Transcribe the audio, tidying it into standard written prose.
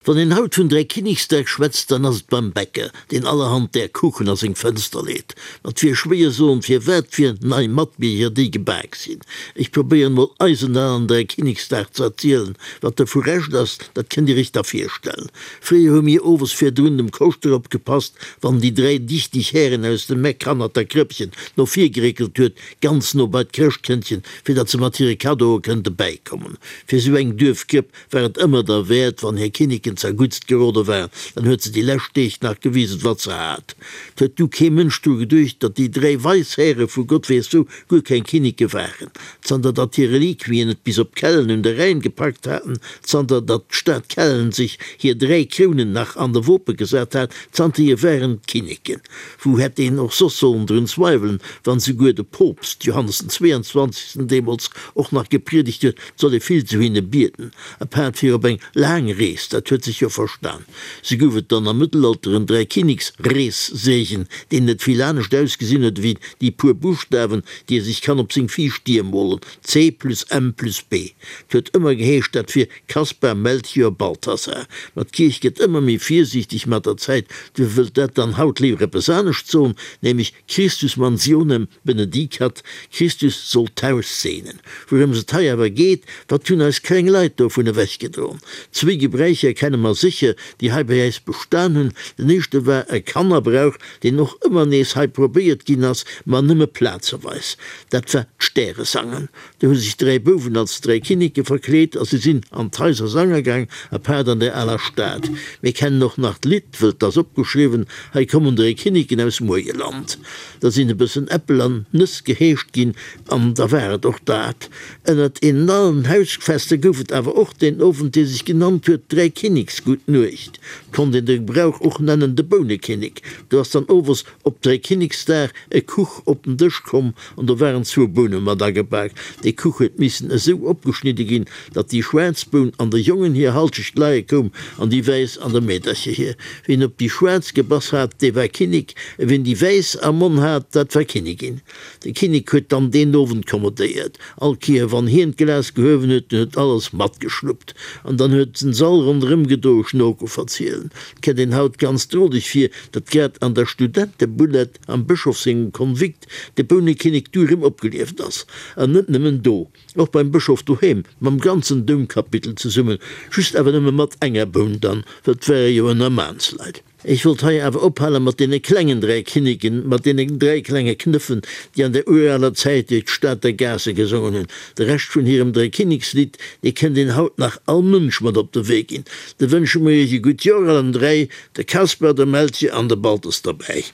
Wann een haut vun Dräikinneksdag schwätzt, dann ass et beim Bäcker, deen allerhand där Kuchen a seng Fënster leet. Ma 't wier schwéier soen, firwat fir nei Matbierger déi gebak sinn. Ech probéieren mol eisen alen Dräikinneksdag ze erzielen. Wat dovu Rescht ass, dat kënnt dir iech da virstellen. Fréier hu mir owes virdrun dem Koschter opgepasst, wann déi dräi dichteg Hären aus dem Meck hannert der Krëppchen no vir geréckelt huet, ganz no bei d'Chrëschtkëndchen, fir datt se mat hire Kaddoe kënnte bäikommen. Fir sou eng Duerfkrëpp war et ëmmer derwäert, wann hir Kinneken zerguttst gerode waren, dann huet se déi lescht Deeg nach gewisen, wat se hat. 't huet du kee Mënsch dru geduecht, datt déi dräi weis Häre vu Gott weess wou guer keng Kinneke waren, zanter datt hir Reliquien et bis op Kellen un de Rhäin gepackt haten, zanter datt d'Stad Kellen sech hir dräi Krounen nach an de Wope gesat hat, zanterhier waren et Kinneken. Wou hätt een och soss sollen drun zweiwelen, wann souguer de Poopst Johannes den 22. Deemools och nach gepriedegt huet, 't soll ee vill zu hinne bieden, apaart fir op eng laang Rees, dat huet sech jo verstan. Sou gouf et dann am Mëttelalter en Dräikinniksreesseegen, deen net vill anescht ausgesinn huet ewéi déi puer Buschtawen, déi ee sech kann op seng viischt Dier molen, C plus M plus B. 't huet ëmmer geheescht, dat wier Kaspar, Melchior, Balthasar. Ma d'Kierch gëtt ëmmer méi virsiichteg mat der Zäit, duerfir wëllt dat dann haut léiwer eppes anescht soen, nämlech Christus mansionem benedicat, Christus soll d'Haus seenen. Wourëms et hei awer geet, wat hunn eis kleng Leit dovun ewechgedroen? Zwéi Gebräicher kenne mer sécher, déi hei bei äis bestan hunn. Den éischte war e Kannerbrauch, deen och ëmmer nees hei probéiert ginn ass, ma nëmme plazeweis. Dat war d'Stäresangen. Do hu sech dräi Bouwen als dräi Kinneke verkleet a si sinn an d'Haiser sange gaang, apaart an der aler Stad. Mir kennen och nach d'Lidd, wëll 't ass opgeschriwwen, Hei kommen dräi Kinneken aus Muergeland. Da sinn e bëssen Äppel an Nëss geheescht ginn an da war et och dat. Ënnert deenen allen Hausfester gouf et awer och deen Owend, dee sech genannt huet Dräikinneksgutt Nuecht. 't konnt een de Brauch och nennen de Bounekinnek. Do ass dann owes op Dräikinneksdag e Kuch op den Dësch komm an do waren zwou Boune mat agebak. Dee Kuch huet missen esou opgeschnidde ginn, datt déi schwaarz Boun an der Jongen hir Halschecht leie koum an déi wäiss an der Meedercher hir. Wien op déi schwaarz gebass hat, dee war Kinnek, a wien déi wäiss am Monn hat, dat war Kinnigin. De Kinnek huet dann deen Owend kommodéiert. All Kéier wann hien d'Glas gehuewen huet, dunn huet alles matgeschluppt an dann huet den Sall ronderëm gedoe Schnoko verzielen. 't kënnt een haut ganz droleg vir, datt grad an der Studentebullett am Bëschof sengem Konvikt de Bounekinnek du rëm opgelieft ass. An net nëmmen do, och beim Bëschof doheem, mam ganzen Doumkapitel zesummen, just awer nëmme mat enger Boun dann, well 't ware jo ënner Maansleit. Ech wollt hei awer ophale mat deene klengen dräi Kinneken, mat deenen dräi klenge Knëffen, déi an der uraler Zäit duerch d'Stater Gaasse gesongen hunn. De Rescht vun hirem Dräikinnekslidd, dee kënnt een haut nach all Mënsch mat op de Wee ginn. Da wënsche mer iech e gutt Joer allen dräi, de Kasper, de Melchior an de Baltes derbäi.